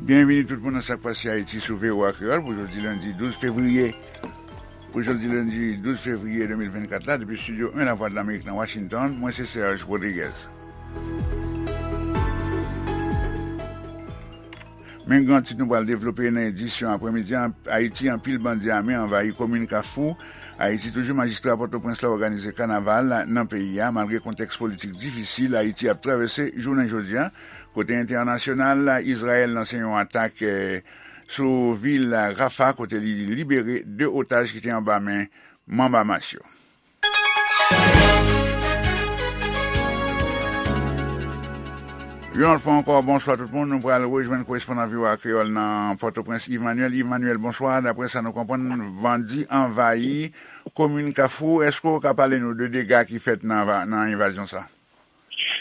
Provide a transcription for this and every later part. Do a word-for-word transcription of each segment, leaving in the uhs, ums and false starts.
Byenvini tout moun nan Sa k Pase Ayiti sou V O A Kreyòl pou jodi lendi douz fevriye. Pou jodi lendi douz fevriye de mil vennkat la, depi estidyo en Lavwadlamerik nan Washington, mwen se Serge Rodriguez. Men gran tit nou pral devlope nan edisyon aprèmidi an, Ayiti, anpil bandi ame anvayi komin Kafou. Ayiti toujou, majistra Pòtoprens la òganize kanaval nan peyi a, malgre kontèks politik difisil Ayiti ap travèse jounen jodi a. Kote entènasyonal, Izrayèl lanse yon atak, eh, sou vil Rafah, kote li libere de otaj ki te anba men manm Hamas yo. Yon lòt fwa ankò, bonswa tout moun. Nou pral rejwenn korespondan V O A Kreyòl nan Pòtoprens, Yves Manuel. Yves Manuel, bonswa. Daprè sa nou konprann, bandi anvayi komin Kafou. Èske w ka pale nou de dega ki fèt nan, nan envazyon sa?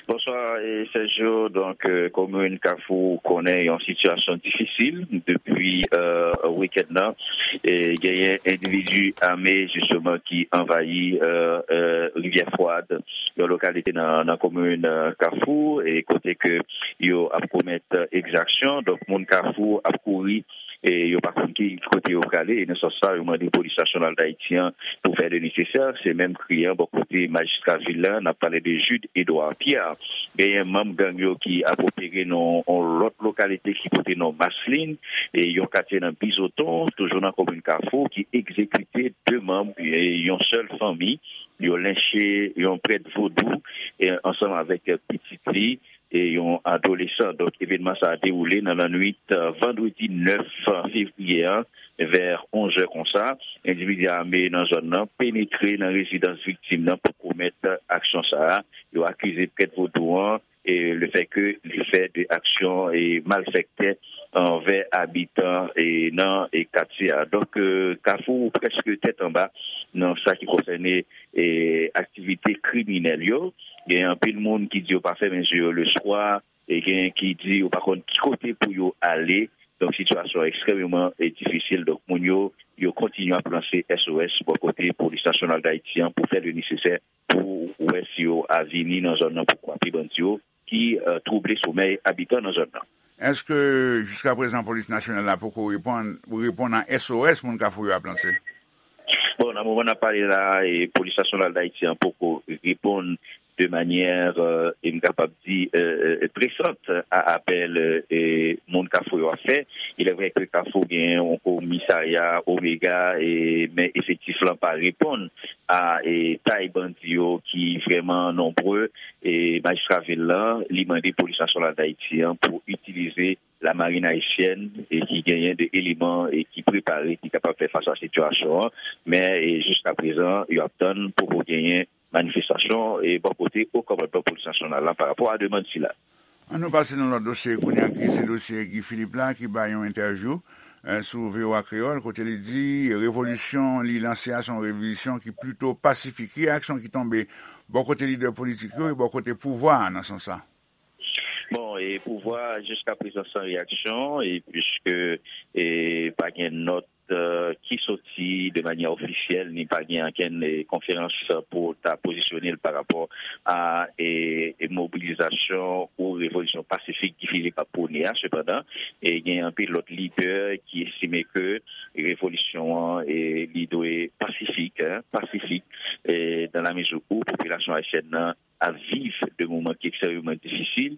Bonswa, eh, Sergio. Donk, eh, komin Kafou konnen yon sitiyasyon difisil depi, eh, wikenn nan. E genyen endividi ame, jisteman, ki anvayi, eh, eh, Rivyè Fwad, yon lokalite nan, nan komin, eh, Kafou, e kote ke yo ap komèt, eh, egzaksyon. Donk, moun Kafou ap kouri e yo pa konn ki kote yo prale. E nan sans sa, yo mande Polis Nasyonal d Ayiti an pou fè le nesesè. Se menm kri an bò kote majistra vil la, n ap pale de Jude Edouard Pierre. Genyen manm gang yo ki ap opere nan yon lòt lokalite ki pote non Maslin, e yon katye nan Bizoton, toujou nan komin Kafou, ki egzekite de manm, e yon sèl fanmi. Yo lenche yon prèt vodou, e ansanm avèk pitit li, e yon adolesan. Donk, evènman sa a dewoule nan lannwit, eh, vandredi nèf fevriye a, vè onz è konsa. Endividi ame nan zòn nan penetre nan rezidans viktim nan pou komèt aksyon sa a. Yo akize prèt vodou an, e lefètke li fè de aksyon e malfektè anvè abitan e nan e katye a. Donk, eh, Kafou prèske tèt anba nan sa ki konsène e aktivite kriminèl yo. Gen anpil moun ki di yo pa fèmen je yo leswa, e gen ki di yo pa konn ki kote pou yo ale. Donk, sitiyasyon an ekstrèmeman, e, difisil. Donk, moun yo, yo kontinye ap lanse S O S bò kote Polis Nasyonal d Ayiti an pou fè le nesesè pou wè si yo a vini nan zòn nan pou kwape bandi yo ki, eh, twouble somèy abitan nan zòn nan. Èske jiska prezan Polis Nasyonal la poko reponn, reponn a S O S moun Kafou yo ap lanse? Bon, nan moman n ap pale la, e, Polis Nasyonal d Ayiti an poko reponn de manyè, eh, e m kapab di, eh, eh, presant a apèl, eh, moun Kafou yo ap fè. Il est vrai que Kafou gen yon komisarya Omega, e, men efektif lan pa reponn a, e, tay bandi yo ki vrèman nonbre. E, majistra vil lan, li mande Polis Nasyonal d Ayiti an pou itilize lamarin ayisyèn, e ki genyen de eleman, e ki prepare, ki kapab fè fas a sitiyasyon an. Men, e, jiska prezan, yo ap tann, poko genyen manifestasyon, e bò kote o kòmandman Polis Nasyonal la pa rapò a demann sila. An nou pase nan lòt dosye kounye a, ki se dosye Guy Philippe la, ki bay yon entèvyou, eh, sou V O A Kreyòl, kote li di revolisyon li lanse a se yon revolisyon ki plito pasifik. Ki reyaksyon ki tonbe bò kote lidè politik yo e bò kote pouvwa a nan sans sa? Bon, e pouvwa a jiska prezan san reyaksyon, e piske, e, pa gen nòt, e, ki soti de manyè ofisyèl, ni pa gen ankenn, e, konferans pou ta pozisyone l pa rapò a, e, e, mobilizasyon ou revolisyon pasifik Guy Philippe ap pwone a. Sepandan, e, gen anpil lòt lidè ki estime ke revolisyon an, e, li dwe pasifik, en, pasifik, e, dans la mesure où popilasyon ayisyèn nan ap viv de moman ki ekstrèmeman difisil,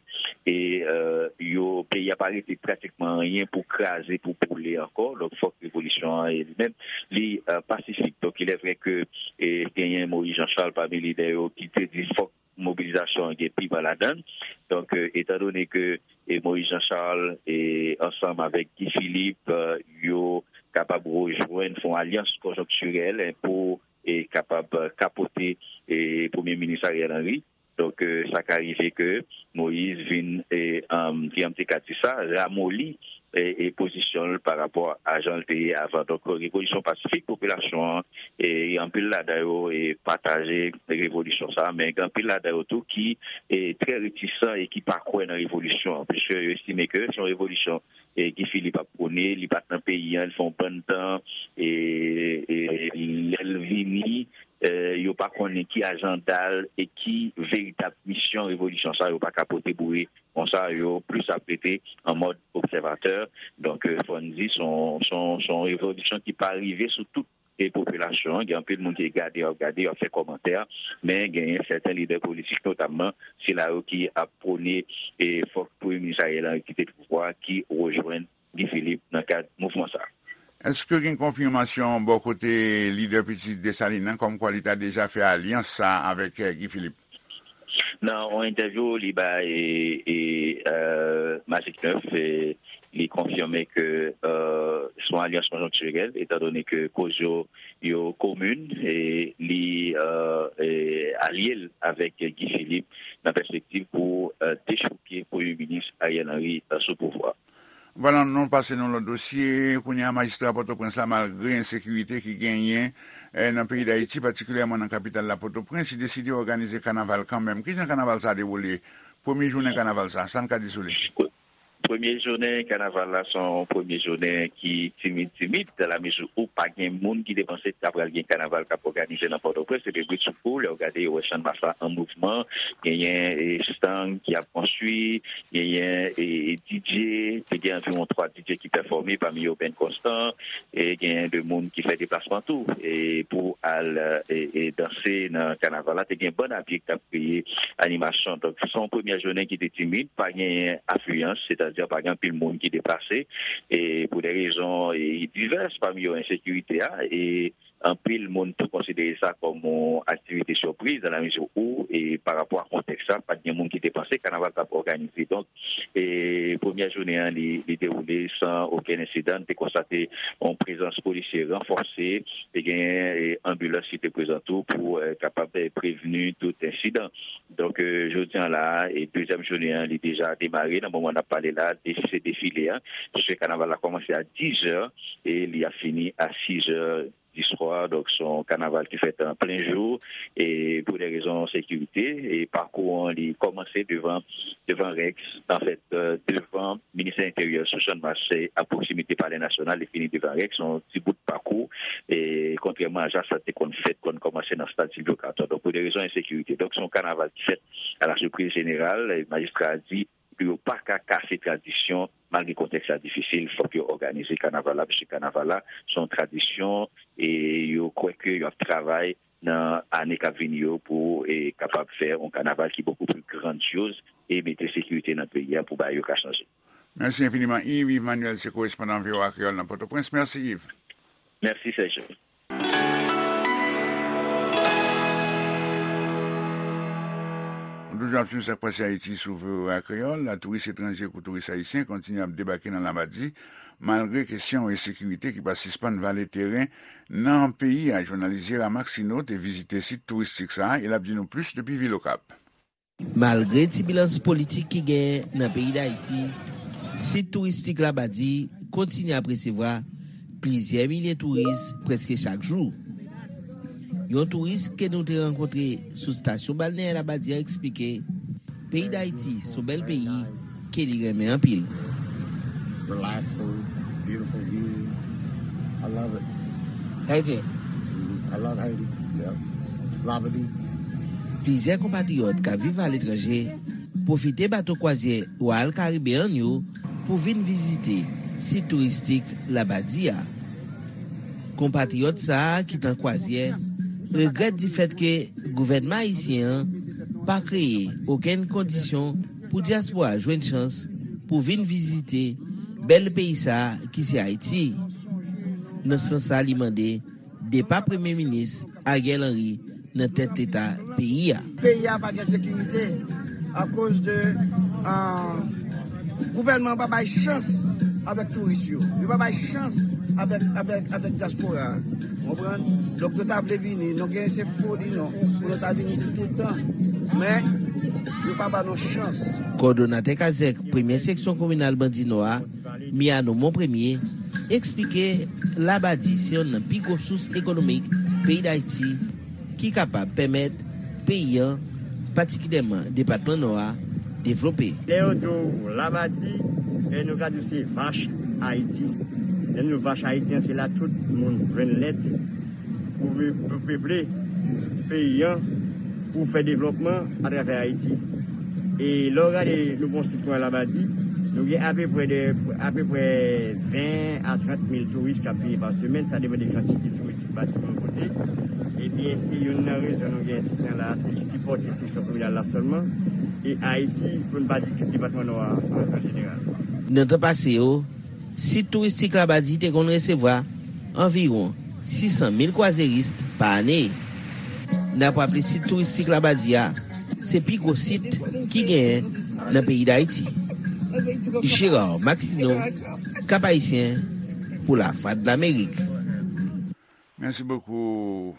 e, e, yo, peyi a pa rete pratikman anyen pou kraze, pou boule ankò. Donk, fòk revolisyon an, e, li menm, li, e, pasifik. Donk, il est vrai que, e, genyen Moïse Jean Charles pami lidè yo ki te di fòk mobilizasyon an gen piman ladan l. Donk, e, etandone ke, e, Moïse Jean Charles, e, ansanm avèk Guy Philippe, e, yo kapab rejwenn, fè yon alyans konjonktirèl, en, pou e kapab, e, kapote, e, Premye Minis Ariel Henry. Donk, e, sa ka rive ke Moïse vin, e, um, kijan m te ka di sa, ramoli, e, e pozisyon l pa rapò a jan l te ye avan. Donk, revolisyon pasifik, popilasyon an, e, anpil ladan yo, e, pataje revolisyon sa, men gen anpil ladan yo tou ki, e, trè retisan e ki pa kwè nan revolisyon an, piske yo estime ke se yon revolisyon e Guy Philippe ap pwone, li pa t nan peyi an, li fè yon bann tan, e, e lè l vini, e, yo pa konnen ki ajanda l e ki veritab misyon revolisyon sa yo pa ka pote boure konsa, yo plis ap rete an mòd obsèvatè. Donk, fò n di, se yon, se yon, se yon revolisyon ki pa rive sou tout e popilasyon an. Gen anpil moun ki gade, y ap gade, y ap fè kòmantè, men genyen sèten lidè politik, notamman sila yo ki ap pwone e fòk Premye Minis Ariel Henry kite pouvwa, ki rejwenn Guy Philippe nan kad mouvman sa a. Èske gen konfimasyon bò kote lidè pitit Desalin nan, kòmkwa li ta deja fè alyans sa a avèk, eh, Guy Philippe? Nan yon entèvyou li bay e, e, euh, Magic neuf, e, li konfime ke, euh, se yon alyans konjonktirèl, etandone ke koz yo, yo komin, e li, euh, e, alye l avèk Guy Philippe nan pèspektiv pou, euh, dechouke Premye Minis Ariel Henry, euh, sou pouvwa. Vwala, nou pase nan lòt dosye. Kounye a, majistra Pòtoprens la, malgre ensekirite ki genyen, eh, nan peyi Dayiti, patikilyèman nan kapital la, Pòtoprens, li deside òganize kanaval kanmenm. Kijan kanaval sa a dewoule? Premye jounen kanaval sa, sa n ka di sou li? Premye jounen kanaval la, se yon premye jounen ki timid, timid, dan la mezi ou pa gen moun ki te panse ta pral gen kanaval k ap òganize nan Pòtoprens. Epi bridsoukou, lè w gade, ou wè Channmas la an mouvman, genyen, e, estang ki ap konstwi, genyen, e, e, D J, te gen anviwon twa D J ki pèfòme, pami yo Ben Constant, e genyen de moun ki fè deplasman tou, e pou al, e, e, danse nan kanaval la. Te gen bann a pye k t ap kreye animasyon. Donk, se yon premyè jounen ki te timid, pa genyen afliyans, sètadi pa gen anpil moun ki deplase, e pou de rezon, e, divès, pami yo ensekirite a, e anpil moun tou konsidere sa kòm yon aktivite sipriz, dan la mezi ou, e pa rapò a kontèks la, pa t gen moun ki te panse kanaval t ap òganize. Donk, e premyè jounen an, li, li dewoule san okenn ensidan. Nou te konstate yon prezans polisye ranfòse, te gen, e, anbilans ki te prezan tou pou, e, kapab, e, prevni tout ensidan. Donk, e, jodi an la, e dezyèm jounen an, li deja demare. Nan moman n ap pale la, de-, se defile a. Paske kanaval la kòmanse a dizè e li ap fini a sizè diswa. Donk, se yon kanaval ki fèt an plen jou, e pou de rezon sekirite, e pakou an, li kòmanse devan, devan Rex, anfèt, e, devan Ministè Enteryè sou Channmas, se a pwoksimite Palè Nasyonal, li fini devan Rex, se yon ti bout pakou, e kontrèman a jan sa te konn fèt, konn kòmanse nan Stad Silvyo Katò. Donk, pou de rezon ensekirite. Donk, se yon kanaval ki fèt a la sipriz jeneral, e majistra a di, pou yo pa ka kase tradisyon, malgre kontèks la difisil, fòk yo òganize kanaval la, paske kanaval la, se yon tradisyon, e yo kwè ke y ap travay nan ane k ap vini yo pou, e, kapab fè yon kanaval ki bokou pli grandyoz e mete sekirite nan peyi a pou bagay yo ka chanje. Mèsi enfiniman, Yves. Yves Manuel, se korespondan V O A Kreyòl nan Pòtoprens. Mèsi, Yves. Mèsi, Serge. Nou toujou ap swiv sa k pase Ayiti sou V O A Kreyòl. Touris etranje kou touris ayisyen kontinye ap debake nan Labadi, malgre kesyon ensekirite ki pa sispann vale teren nan peyi a. Jounalis Gérard Maxineau te vizite sit touristik sa a e l ap di nou plis depi vil Okap. Malgre tibilans politik ki genyen nan peyi Dayiti, sit touristik Labadi kontinye ap resevwa plizyè milye touris prèske chak jou. Yon touris ke nou te rankontre sou estasyon balneyè Labadi a eksplike, peyi Dayiti se yon bèl peyi ke li renmen anpil. Relaxing, beautiful view. I love it. Haiti. Mhm. I love Haiti. Yeah. Labadi. Plizyè konpatriyòt k ap viv aletranje pwofite bato kwazyè Royal Caribbean yo pou vin vizite sit touristik Labadi a. Konpatriyòt sa a ki t an kwazyè regrèt difèt ke gouvènman ayisyen an pa kreye okenn kondisyon pou dyaspora jwenn chans pou vin vizite bèl peyi sa a ki se Ayiti. Nan sans sa, li mande depa Premye Minis Ariel Henry nan tèt Leta peyi a. Peyi a pa gen sekirite akoz de, ah, gouvènman an pa bay chans avèk touris yo. Yo pa bay chans avèk, avèk, avèk dyaspora a. Konprann? Donk, yo ta vle vini, nou gen se foli non, pou nou ta vin isit tout tan. Men, yo pa ba nou chans. Kòdonatè Kazèk, premyè seksyon kominal Bandi Nò a, Miano Monpremier, eksplike Labadi se yonn nan pi gwo sous ekonomik peyi Dayiti ki kapab pèmèt peyi an, patikilyèman depatman Nò a, devlope. Lè yo di w Labadi, e nou ka di w se vach Ayiti. Lè nou di vach Ayiti an, se la tout moun jwenn lèt pou, pou peple. Peyi an pou fè devlòpman atravè Ayiti. E lè w gade nou gen yon sit konsa Labadi, nou gen apeprè de, apeprè ven a trant mil touris k ap vini pa semèn, sa depann de kantite touris ki pati pou yon kote. Ebyen, se youn nan rezon nou gen sit nan la, se li sipòte seksyon kriminal la sèlman, e Ayiti, pou n pa di tout depatman Nò a an, an jeneral. Nan tan pase yo, sit touristik Labadi te konn resevwa anviwon sis san mil kwazeris pa ane. N ap raple sit touristik Labadi a, se pi gwo sit ki genyen nan peyi Dayiti. Gérard Maxineau, Cap Haïtien, pou Lavwadlamerik. Mèsi bokou,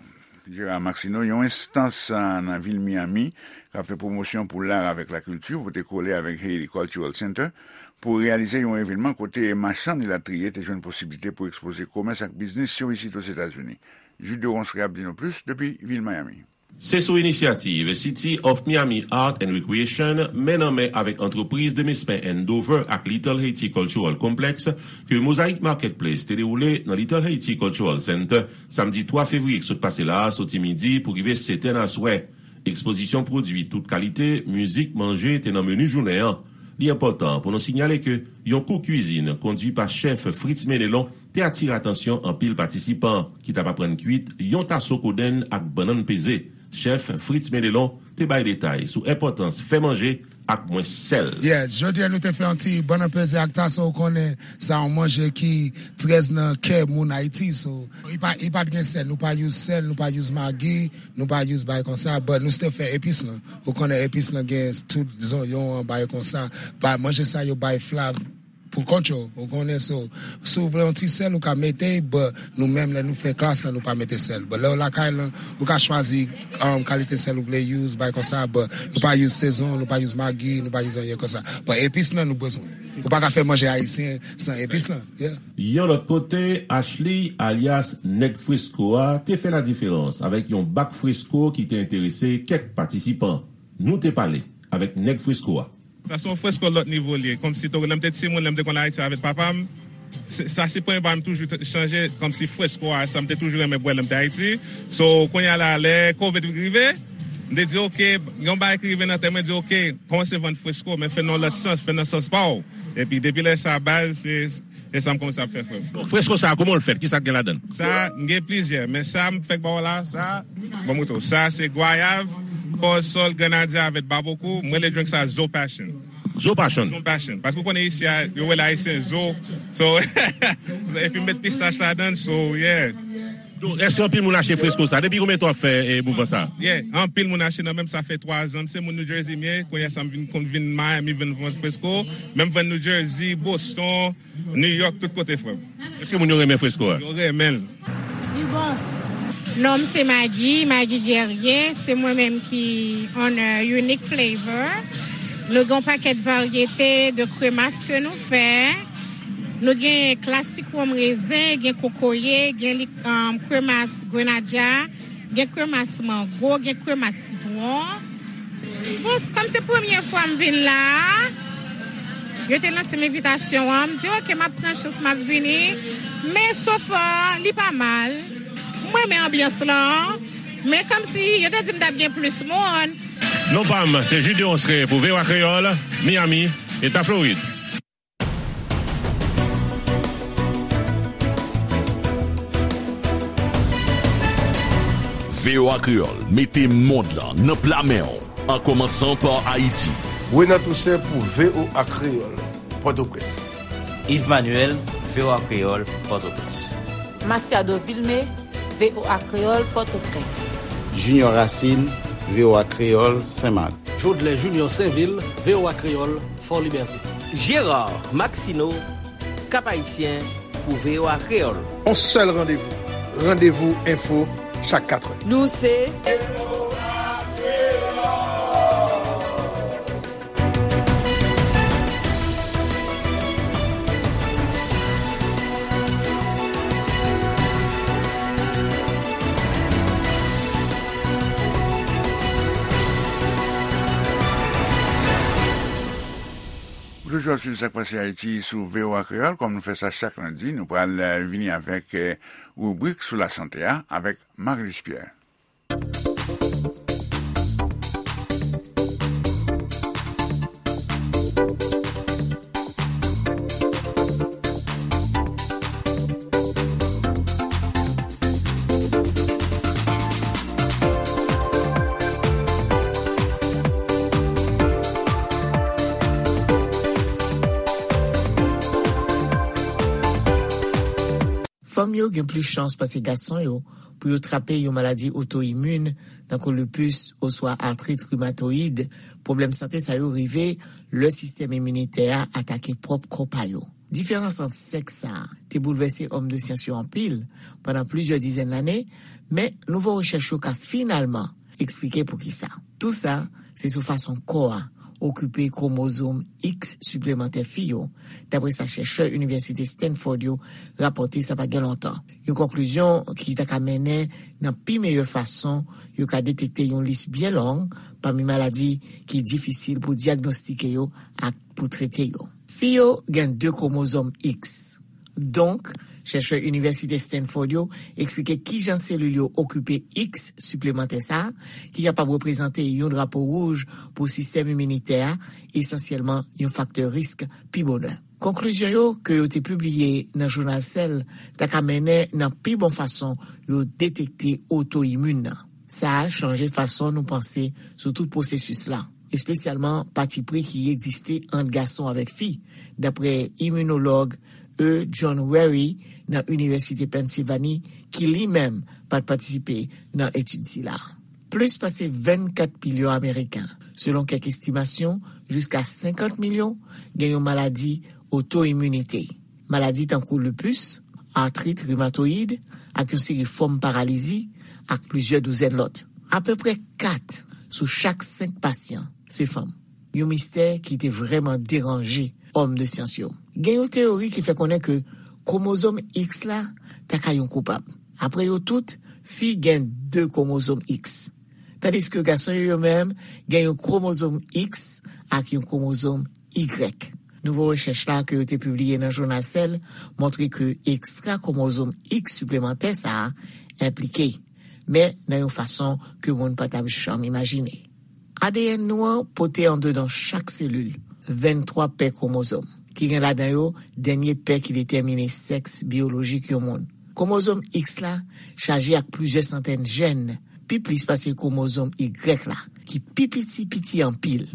Gérard Maxineau. Yon enstans, a, nan vil Miami k ap fè pwomosyon pou lar avèk lakilti pote kole avèk Haiti Cultural Center pou reyalize yon evènman kote machann elatriye te jwenn posiblite pou ekspoze komès ak biznis yo isit Ozetazini. Jude Ronceray ap di nou plis depi vil Miami. Se sou inisyativ City of Miami Art and Recreation, men nan men avèk antrepriz Demesmin Andover ak Little Haiti Cultural Complex, ke Mosaic Marketplace te dewoule nan Little Haiti Cultural Center, samdi twa fevriye k sot pase la a, soti midi pou rive sèt è nan aswè. Ekspozisyon pwodui tout kalite, mizik, manje te nan meni jounen an. Li enpòtan pou nou sinyale ke yon kou kwizin kondui pa chèf Fritz Menelon te atire atansyon anpil patisipan ki t ap aprann kwit yon taso kodenn ak bannann peze. Chèf Fritz Menelon te bay detay sou enpòtans fè manje ak mwens sèl. Yeah, jodi a nou te fè yon ti bannann peze ak taso, ou konnen sa yon manje ki trè nan kè moun Ayiti, so, li pa, li pa t gen sèl, nou pa use sèl, nou pa use magi, nou pa use bagay konsa, but nou still fè epis lan. Ou konnen epis lan gen tout zonyon an, bagay konsa, ba manje sa yo bay flav pou kont yo, ou konnen, so, si w vle yon ti sèl, ou ka mete, but nou menm lè nou fè klas lan, nou pa mete sèl. But lè w lakay lan, ou ka chwazi, um, kalite sèl ou vle use, bagay konsa, but nou pa use sezon, nou pa use magi, nou pa use anyen konsa. But epis lan nou bezwen. Ou pa ka fè manje ayisyen san epis lan, yeah. Yon lòt kote, Ashley, alyas Nèg Fresko a, te fè ladiferans avèk yon bak fresko ki te enterese kèk patisipan. Nou te pale avèk Nèg Fresko a. Sa se yon fresko lòt nivo li ye. Kòmsi tou, lè m te timoun, lè m te konn Ayiti avèk papa m, se, sa se premye bagay m toujou t-, chanje, kòmsi fresko a, sa m te toujou renmen bwè lè m te Ayiti. So, kounye a la, lè covid rive, m te di, "Ok, yon bagay ki rive nan tèt mwen, di, 'Ok, kòmanse vann fresko, men fè nan yon lòt sans, fè nan sans pa w.'" Epi, depi lè sa, baz, se, se sa m kòmanse ap fè, frè m. Fresko sa, kòman l fèt? Kisa k gen ladan l? Sa, m gen plizyè, men sa m fèk ba w la, sa, bon, mouton. Sa, se gwayav, kòsòl, grenadya avèk babokou. Mwen, le drink sa, Zo Passion. Zo Passion. Zo Passion. Paske w konnen isi a, yo rele Ayisyen zo. So, epi m met pistach ladan l, so, yeah. Donk, èske anpil moun achte fresko sa? Depi konbyen tan w ap fè, eh, mouvman sa? Yeah, anpil moun achte nan men m, sa fè twa zan. Se moun New Jersey m ye, kounye a sa m vin, konn vin Miami, vin vann fresko. Men m vann New Jersey, Boston, New York, tout kote, frè m. Èske moun yo renmen fresko a? Yo renmen l. Li bon. Non m se Maggie, Maggie Guerrier. Se mwen menm ki owner Unique Flavor. Nou gen yon pakèt varyete de kremas ke nou fè. Nou gen klasik wonm rezen, gen kokoye, gen li, um, kremas grenadya, gen kremas mango, gen kremas sitwon. Bon, kòm se premye fwa m vin la a, yo te lanse m envitasyon an, m di, "Ok, m ap pran chans, m ap vini." Men so far, li pa mal. Mwen renmen anbyans lan. Men kòmsi yo te di m t ap gen plis moun. Non pa m, se Jude Ronceray pou V O A Kreyòl, Miami, Eta Florid. V O A Kreyòl mete mond lan nan pla men w, an kòmansan pa Ayiti. Renan Toussaint pou V O A Kreyòl, Pòtoprens. Yves Manuel, V O A Kreyòl, Pòtoprens. Masiado Vilmé, V O A Kreyòl, Pòtoprens. Junior Racine, V O A Kreyòl, Senmak. Jodlè Junior Sainvil, V O A Kreyòl, Fò Libète. Gérard Maxineau, Cap Haïtien, pou V O A Kreyòl. On sèl randevou, Randevou Enfo, chak katrè. Nou se Ou toujou ap swiv Sa k Pase Ayiti sou V O A Kreyòl. Kòm nou fè sa chak lendi, nou pral, eh, vini avèk, eh, ribrik sou lasante a avèk Marie-Luce Pierre. yo gen plis chans pase gason yo pou yo trape yon maladi oto-imin, tankou lupus oswa artrit rimatoyid. Pwoblèm sante sa yo rive lè sistèm iminitè a atake pwòp kò pa yo. Diferans ant sèks sa a te boulvèse òm de syans yo anpil pandan plizyè dizèn lane, men nouvo rechèch yo ka finalman eksplike poukisa. Tou sa, se sou fason kò a okipe kwomozòm X siplemantè fi yo, dapre sa chèchè Inivèsite Stanford yo rapòte sa pa gen lontan. Yon konklizyon ki ta ka mennen nan pi meyè fason yo ka detekte yon lis byen long pami maladi ki difisil pou dyagnostike yo ak pou trete yo. Fi yo gen de kwomozòm X. Donk, chèchè Inivèsite Stanford yo eksplike kijan selil yo okipe X siplemantè sa a, ki kapab reprezante yon drapo wouj pou sistèm iminitè a, esansyèlman yon faktè risk pi bonè. Konklizyon yo ke yo te pibliye nan jounal Cell ta ka mennen nan pi bon fason yo detekte oto-imin nan. Sa a chanje fason nou panse sou tout pwosesis la, espesyalman patipri ki egziste ant gason avèk fi, dapre iminolog E. John Wherry nan Inivèsite Pennsilvani, ki li menm pa t patisipe nan etid sila. Plis pase vennkat milyon Ameriken, selon kèk estimasyon, jiska senkant milyon, gen yon maladi oto-iminite. Maladi tankou lupus, artrit rimatoyid, ak yon seri fòm paralizi, ak plizyè douzèn lòt. Apeprè kat sou chak senk pasyan se fanm. Yon mistè ki te vrèman deranje òm de syans yo. Gen yon teyori ki fè konnen ke kwomozòm X la ta ka yon koupab. Apre yo tout, fi gen de kwomozòm X, tandiske gason yo, yo menm, gen yon kwomozòm X ak yon kwomozòm Y. Nouvo rechèch la ke yo te pibliye nan jounal Cell montre ke ekstra kwomozòm X siplemantè sa a enplike, men nan yon fason ke moun pa t ap janm imajine. A D N nou an pote andedan chak selil venntwa pè kwomozòm, ki gen ladan yo dènye pè ki detèmine sèks biyolojik yon moun. Kwomozòm X la chaje ak plizyè santèn jèn, pi plis pase kwomozòm Y la, ki pi piti, piti anpil.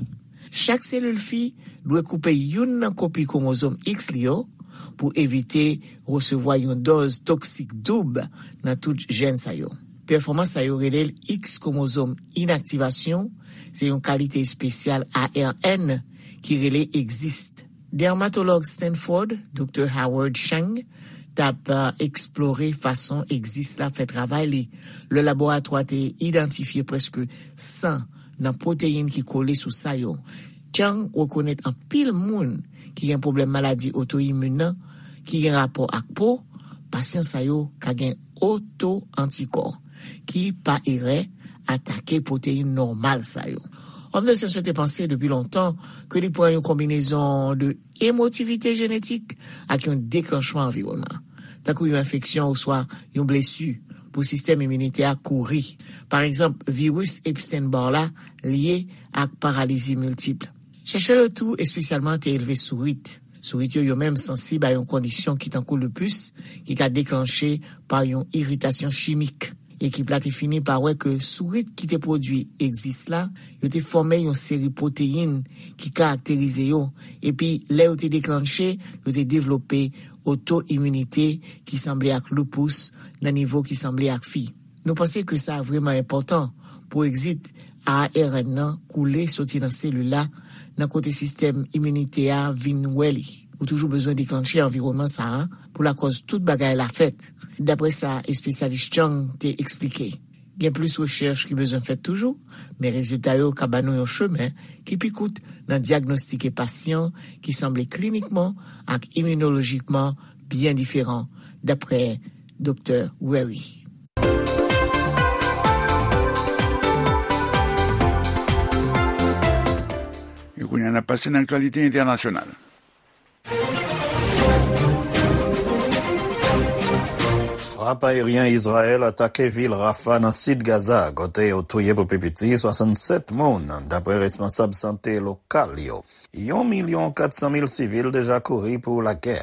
Chak selil fi dwe koupe youn nan kopi kwomozòm X li yo pou evite resevwa yon dòz toksik doub nan tout jèn sa yo. Pèfòmans sa yo rele l X kwomozòm inaktivasyon, se yon kalite espesyal A R N ki rele Exist. Dèmatològ Stanford, Doktè Howard Chang, t ap, eh, eksplore fason Exist la fè travay li. Lè laboratwa te idantifye prèske san nan pwoteyin ki kole sou sa yo, Chang rekonèt anpil moun ki gen pwoblèm maladi oto-imin nan, ki gen rapò ak po, pasyan sa yo ka gen oto-antikò, ki, pa erè, atake pwoteyin nòmal sa yo. Òm de syans yo te panse depi lontan ke li pran yon konbinezon de emotivite jenetik ak yon deklanchman anviwònman, tankou yon enfeksyon oswa yon blesi, pou sistèm iminitè a kouri. Pa egzanp, viris Epstein-Barr la lye ak paralizi miltip. Chèchè yo tou espesyalman te elve sourit. Sourit yo, yo menm sansib a yon kondisyon ki tankou lupus, ki ka deklanche pa yon iritasyon chimik. Ekip la te fini pa wè ke sourit ki te pwodui Exist la, yo te fòme yon seri pwoteyin ki karakterize yo, epi lè yo te deklanche, yo te devlope oto-iminite ki sanble ak lupus nan nivo ki sanble ak fi. Nou panse ke sa vrèman enpòtan pou Exist A R N nan koule soti nan selil la, nan kote sistèm iminitè a vin wè li. Ou toujou bezwen deklanche anviwònman sa a pou lakòz tout bagay la fèt, dapre sa espesyalis Chang te eksplike. Gen plis rechèch ki bezwen fèt toujou, men rezilta yo ka ban nou yon chemen ki pi kout nan dyagnostike pasyan ki sanble klinikman ak iminolojikman byen diferan, dapre Doktè Wherry. E kounye a, n ap pase nan aktyalite entènasyonal. Frap ayeryen Izrayèl atake vil Rafah nan sid Gaza, kote yo touye pou pi piti swasannsèt moun, dapre responsab sante lokal yo. Yon milyon kat san mil sivil deja kouri pou lagè.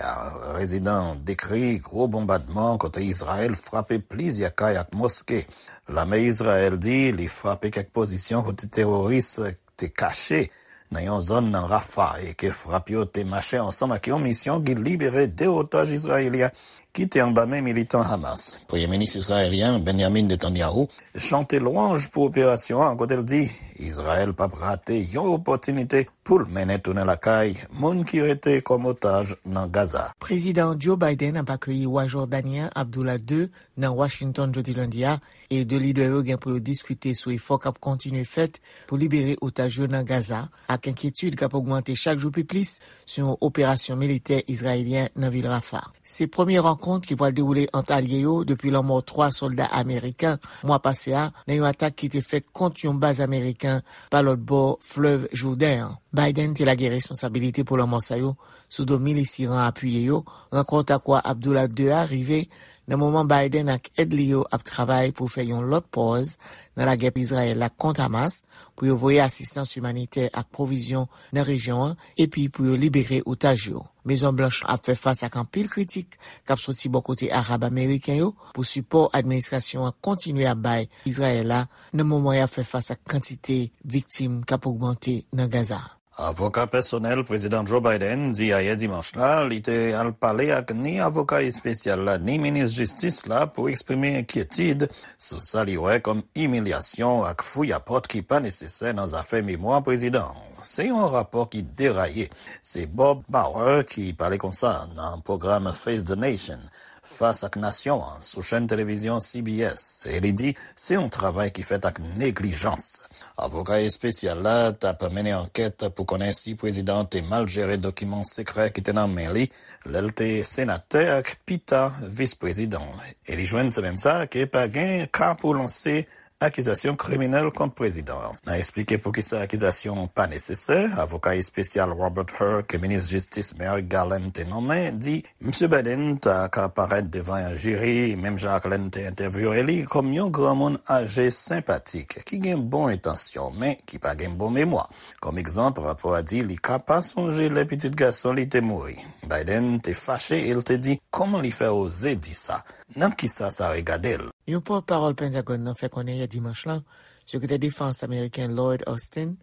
Rezidan dekri gwo bonbadman kote Izrayèl frape plizyè kay ak moske. Lame Izrayèl di li frape kèk pozisyon kote teworis te kache nan yon zòn nan Rafah e ke frap yo te mache ansanm ak yon misyon ki libere de otaj izrayelyen ki te anba men militan Hamas. Premye minis izrayelyen Benjamin Netanyahu chante lwanj pou operasyon an, kote l di Izrayèl p ap rate yon opòtinite pou l mennen tounen lakay moun ki rete kòm otaj nan Gaza. Prezidan Joe Biden ap akeyi wa Jòdani an, Abdullah de, nan Washington jodi lendi a, e de lidè yo gen pou yo diskite sou efò k ap kontinye fèt pou libere otaj yo nan Gaza, ak enkyetid k ap ogmante chak jou pi plis sou yon operasyon militè izrayelyen nan vil Rafah. Se premye rankont ki pral dewoule ant alye yo depi lanmò twa sòlda ameriken mwa pase a nan yon atak ki te fèt kont yon baz ameriken pa lòt bò flèv Jouden an. Biden te lage responsabilite pou lanmò sa yo sou do milis Iran apiye yo. Rankont ak wa Abdullah de a rive nan moman Biden ak èd li yo ap travay pou fè yon lòt pòz nan lagè Izrayèl la kont Hamas, pou yo voye asistans imanitè ak pwovizyon nan rejyon an, epi pou yo libere otaj yo. Mezon Blanch ap fè fas ak anpil kritik k ap soti bò kote Arab ameriken yo pou sipò administrasyon an kontinye ap bay Izrayèl la, nan moman y ap fè fas ak kantite viktim k ap ogmante nan Gaza. Avoka pèsonèl Prezidan Joe Biden di ayè dimanch la li te al pale ak ni avoka espesyal la ni minis jistis la pou eksprime enkyetid sou sa li wè kòm imilyasyon ak fouyapòt ki pa nesesè nan zafè memwa prezidan an. Se yon rapò ki deraye. Se Bob Bauer ki pale konsa nan pwogram Face the Nation, Fas ak Nasyon an, sou chèn televizyon C B S, e li di se yon travay ki fèt ak neglijans. Avoka espesyal la t ap mennen ankèt pou konnen si prezidan an te mal jere dokiman sekrè ki te nan men li lè l te senatè ak pita vis prezidan. E li jwenn semèn sa a ke pa gen ka pou lanse akizasyon kriminèl kont prezidan an. Nan eksplike poukisa akizasyon an pa nesesè, avoka espesyal Robert Hur ke minis jistis Merrick Garland te nonmen di Misye Biden ta ka parèt devan yon jiri, menm jan ak lè n te entèvyouwe li, kòm yon granmoun aje senpatik, ki gen bon entansyon, men ki pa gen bon memwa. Kòm egzanp, rapò a di li ka pa sonje lè pitit gason li te mouri. Biden te fache e l te di, kòman li fè oze di sa? Nan kisa sa regade l? Yon pòtpawòl Pentagòn nan fè konnen yè dimanch lan, Sekretè Defans ameriken Lloyd Austin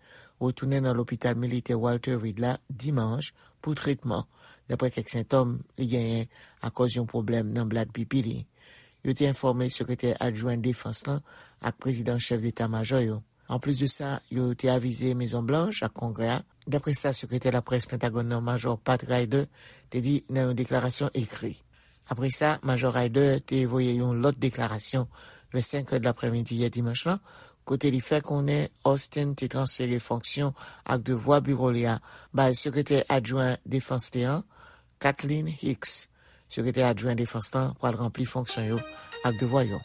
retounen nan lopital militè Walter Reed la dimanch pou tretman, dapre kèk sentòm li genyen akòz yon pwoblèm nan blad pipi li. Yo te enfòme Sekretè Adjwen Defans lan ak Prezidan Chèf Deta Majò yo. Anplis de sa, yo te avize Mezon Blanch ak Kongrè a, dapre sa sekretè laprès Pentagòn nan, Majò Pat Ryder, te di nan yon deklarasyon ekri. Apre sa, Majò Ryder te voye yon lòt deklarasyon vè senk è d laprèmidi yè dimanch lan, kote li fè konnen Austin te transfere fonksyon ak devwa biwo li a bay Sekretè Adjwen Defans li an, Kathleen Hicks. Sekretè Adjwen Defans lan pral ranpli fonksyon yo ak devwa yo.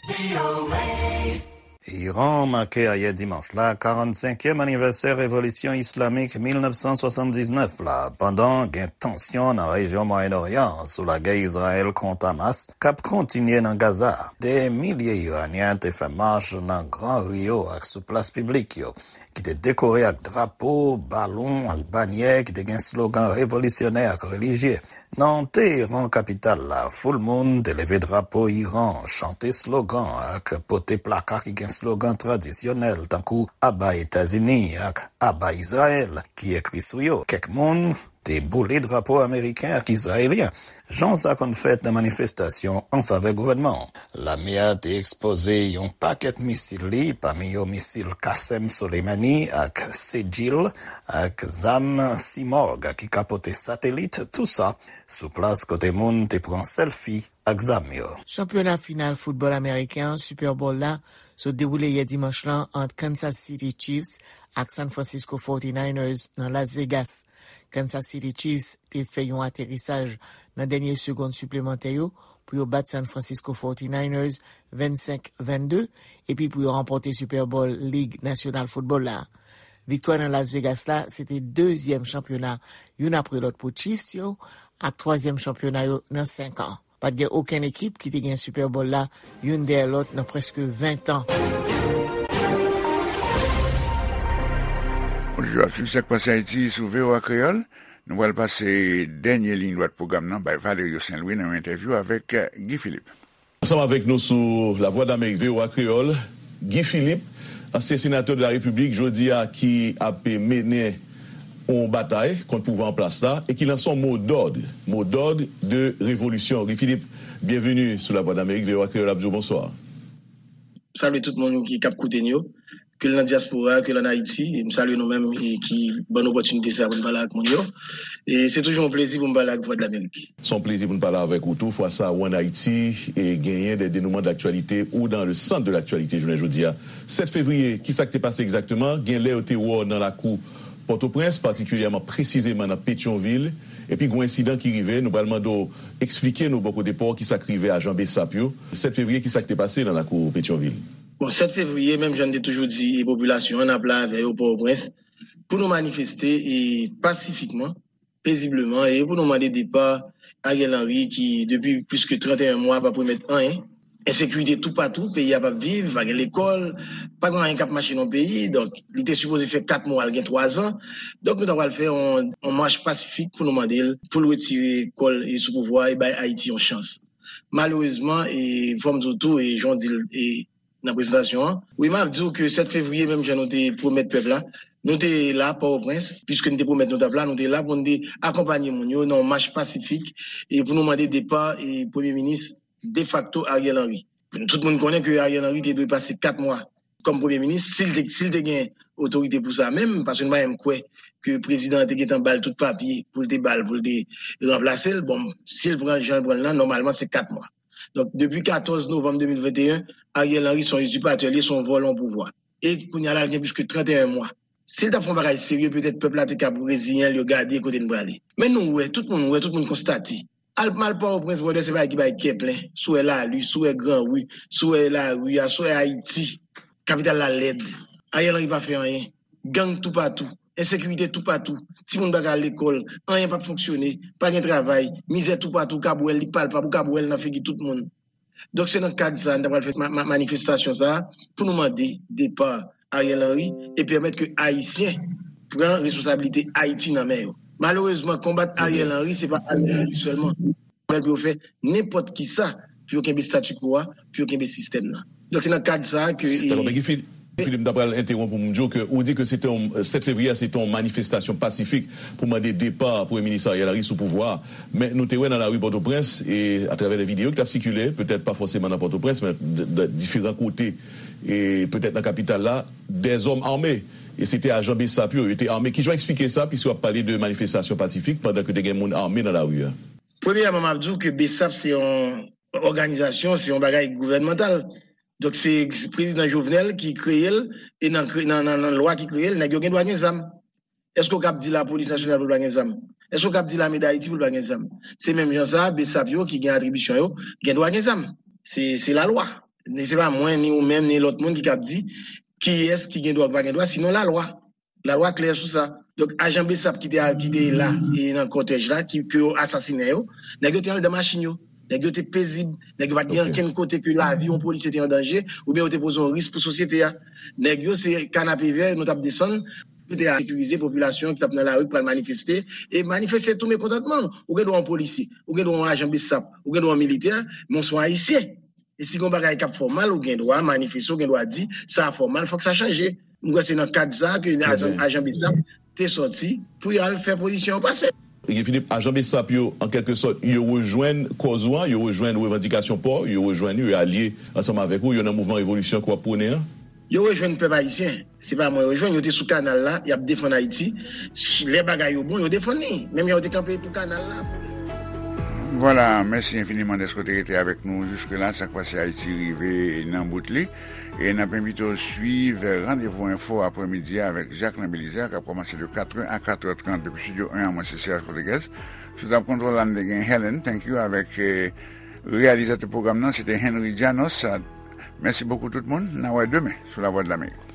Iran make ayè dimanch la karannsenkyèm anivèsè revolisyon islamik mil nèf san swasanndiznèf la, pandan gen tansyon nan rejyon Mwayen Oryan an sou lagè Izrayèl kont Hamas k ap kontinye nan Gaza. Dè milye Iranyen te fè mach nan gran ri yo ak sou plas piblik yo, ki te dekore ak drapo, balon ak banyè ki te gen slogan revolisyonè ak relijye. Nan Teheran, kapital la, foul moun te leve drapo Iran, chante slogan ak pote plaka ki gen slogan tradisyonèl tankou Aba Etazini ak Aba Izrayèl ki ekri sou yo. Kèk moun te boule drapo ameriken ak izrayelyen, jan sa konn fèt nan manifestasyon an favè gouvènman an. Lame a te ekspoze yon pakèt misil li, pami yo misil Qasem Soleimani ak Sejil, ak zam Simorgh ki ka pote satelit, tou sa sou plas kote moun te pran sèlfi ak zam yo. Chanpyona final foutbòl ameriken an, Super Bowl la, sot dewoule yè dimanch lan ant Kansas City Chiefs ak San Francisco forty-niners nan Las Vegas. Kansas City Chiefs te fè yon aterisaj nan dènye segonn siplemantè yo pou yo bat San Francisco forty-niners vennsenk vennde, epi pou yo ranpòte Super Bowl Lig Nasyonal Foutbòl la. Viktwa nan Las Vegas la, se te dezyèm chanpyona youn apre lòt pou Chiefs yo, ak twazyèm chanpyona yo nan senk an. Pa t gen okenn ekip ki te gen Super Bowl la youn dèyè lòt nan prèske ven tan. Bonjou, ap swiv Sak Pase Ayiti sou V O A Kreyòl. Nou pral pase dènye liy dwat pwogram nan bay Valerio Saint Louis nan yon entèvyou avèk Guy Philippe. Ansanm avèk nou sou Lavwadlamerik V O A Kreyòl, Guy Philippe, ansyen senatè de la Repiblik, jodi a ki ap mennen yon batay kont pouvwa an plas la e ki lanse yon mo d'ordre, mo d'ordre de révolution. Guy Philippe, byenveni sou Lavwadlamerik, V O A Kreyòl ap di w bonswa. Salye tout moun ki k ap koute n yo, ke l nan dyaspora, ke l ann Ayiti. E m salye nou menm e ki ban n opòtinite sa pou n pale ak moun yo. E se toujou yon plezi pou m pale ak Vwadlamerik. Se yon plezi pou n pale avèk ou tou. Fwa sa a, ou ann Ayiti e genyen des dénouements d'actualité ou dans le centre de l'actualité jounen jodi a. Sèt fevriye, ki sa k te pase egzakteman? Gen lè yo te wè w nan lakou Pòtoprens, patikilyèman, presizeman nan Petyonvil, epi gen yon ensidan ki rive. Nou pral mande w eksplike nou bò kote pa w ki sa k rive ajan BSAP yo. Sèt fevriye, ki sa k te pase nan lakou Petyonvil? Bon, sèt fevriye, menm jan n te toujou di popilasyon an, n ap la avè yo Pòtoprens pou nou manifeste e pasifikman, pezibleman, e pou nou mande depa Ariel Henry ki, depi plis ke trannteyen mwa, p ap remèt anyen. Ensekirite toupatou, peyi a p ap viv, pa gen lekòl, pa gen anyen k ap mache nan peyi. Donk, li te sipoze fè kat mwa, l gen twazan. Donk, nou ta pral fè yon, yon mach pasifik pou nou mande l, pou l retire kò l e sou pouvwa e bay Ayiti yon chans. Malerezman, e fò m di w tou, e jan w di l, e nan prezantasyon an. Wi, m ap di w ke sèt fevriye, menm jan nou te pwomèt pèp la, nou te la Pòtoprens, piske nou te pwomèt nou t ap la, nou te la pou nou te akonpanye moun yo nan yon mach pasifik e pou nou mande depa e premye minis defakto Ariel Henry. Tout moun konnen ke Ariel Henry te dwe pase kat mwa kòm premye minis, si l te, si l te gen otorite pou sa menm, paske nou pa menm kwè ke prezidan an te gentan ba l tout papye pou l te ba l, pou l te ranplase l. Bon, si l pran jan l pran l lan, nòmalman se kat mwa. Donk, depi katòz novanm de mil venteyen, Ariel Henry se yon izipatè, li se yon vòlò pouvwa. E kounye a la, l gen plis ke trannteyen mwa. Si l t ap fè yon bagay serye, petèt pèp la te kab reziyen l, yo gade kote n prale. Men nou wè, tout moun wè, tout moun konstate. Al, m al Pòtoprens, brother, se bagay ki bay kè plen. Si w wè lari, si w wè gran ri, si w wè lari a, si w wè Ayiti, kapital la lèd. Ariel Henry pa fè anyen. Gang toupatou. Ensekirite toupatou. Timoun pa ka al lekòl. Anyen p ap fonksyone. Pa gen travay. Mizè toupatou. Ou kab wè l, li palpab. Ou kab wè l nan figi tout moun. Donk, se nan kad sa a, n ta pral fè ma, ma, manifestasyon sa a pou nou mande depa Ariel Henry e pèmèt ke Ayisyen pran responsablite Ayiti nan men yo. Malerezman, konbat Ariel Henry, se pa Ariel Henry sèlman. Fè l pou yo fè nenpòt ki sa pou yo kenbe statu quo a, pou yo kenbe sistèm nan. Donk, se nan kad sa a ke. Dakò, men Guy Philippe, Philippe, m ta pral entewonp ou, m di w ke ou di ke se te yon, sèt fevriye a, se te yon manifestasyon pasifik pou mande depa Premye Minis Ariel Henry sou pouvwa a. Men nou te wè nan lari Pòtoprens, e atravè de videyo ki t ap sikile, petèt pa fòseman nan Pòtoprens, men d, d, diferan kote, e petèt nan kapital la, dèzòm ame. E se te ajan BSAP yo, yo te ame. Kijan w eksplike sa, piske w ap pale de manifestasyon pasifik pandan ke te gen moun ame nan lari a? Premyèman, m ap di w ke BSAP se yon òganizasyon, se yon bagay gouvènmantal. Donk, se, se prezidan Jovenel ki kreye l, e nan, nan, nan, nan lwa ki kreye l, nèg yo gen dwa gen zam. Èske w kab di Lapolis Nasyonal pou l pa gen zam? Èske w kab di Lame Dayiti pou l pa gen zam? Se menm jan sa, BSAP yo ki gen atribisyon yo, gen dwa gen zam. Se, se lalwa. Ni se pa mwen, ni ou menm, ni lòt moun ki kab di kiyès ki gen dwa ou pa gen dwa, sinon lalwa. Lalwa klè sou sa. Donk, ajan BSAP ki te, ki te la e nan kòtèj la, ki, ke yo asasinen yo, nèg yo te anndan machin yo. Nèg yo te pezib. Nèg yo pa t gen ankenn kote ke lavi yon polisye te an danje, oubyen yo te poze yon risk pou sosyete a. Nèg yo se kanapevè, nou t ap desann, yo te sekirize popilasyon ki t ap nan lari k pral manifeste, e manifeste tou mekontantman. Ou gen dwa yon polisye, ou gen dwa yon ajan BSAP, ou gen dwa yon militè, men w se yon Ayisyen. E si gen yon bagay k ap fè w mal, ou gen dwa manifeste, ou gen dwa di, sa a fè w mal, fòk sa chanje. M kwè se nan kad sa a ke ajan, ajan BSAP te sòti pou y al fè pozisyon yo pase. Guy Philippe, ajan BSAP yo, an kèlke sòt, yo rejwenn kòz ou an, yo rejwenn revandikasyon pa w, yo rejwenn ou, yo alye ansanm avèk ou, yo nan mouvman revolisyon ke w ap pwone an? Yo rejwenn pèp ayisyen. Se pa mwen yo jwenn, yo te sou kanal la, y ap defann Ayiti. Lè bagay yo bon, yo defann li. Menm jan yo te kanpe pou kanal la. Vwala, mèsi enfiniman dèske w te rete avèk nou jiske la. Sa k pase Ayiti rive nan bout li. E n ap envite w swiv Randevou Enfo aprèmidi a avèk Jacquelin Belizaire, k ap kòmanse de katrè a katrè trant depi Estidyo en an. Mwen se Serge Rodriguez. Sou tab kontwòl la, n te gen Helen, thank you, avèk eh, reyalizatè pwogram nan, se te Henry Janos. Mèsi bokou tout moun. N a wè demen sou Lavwadlamerik.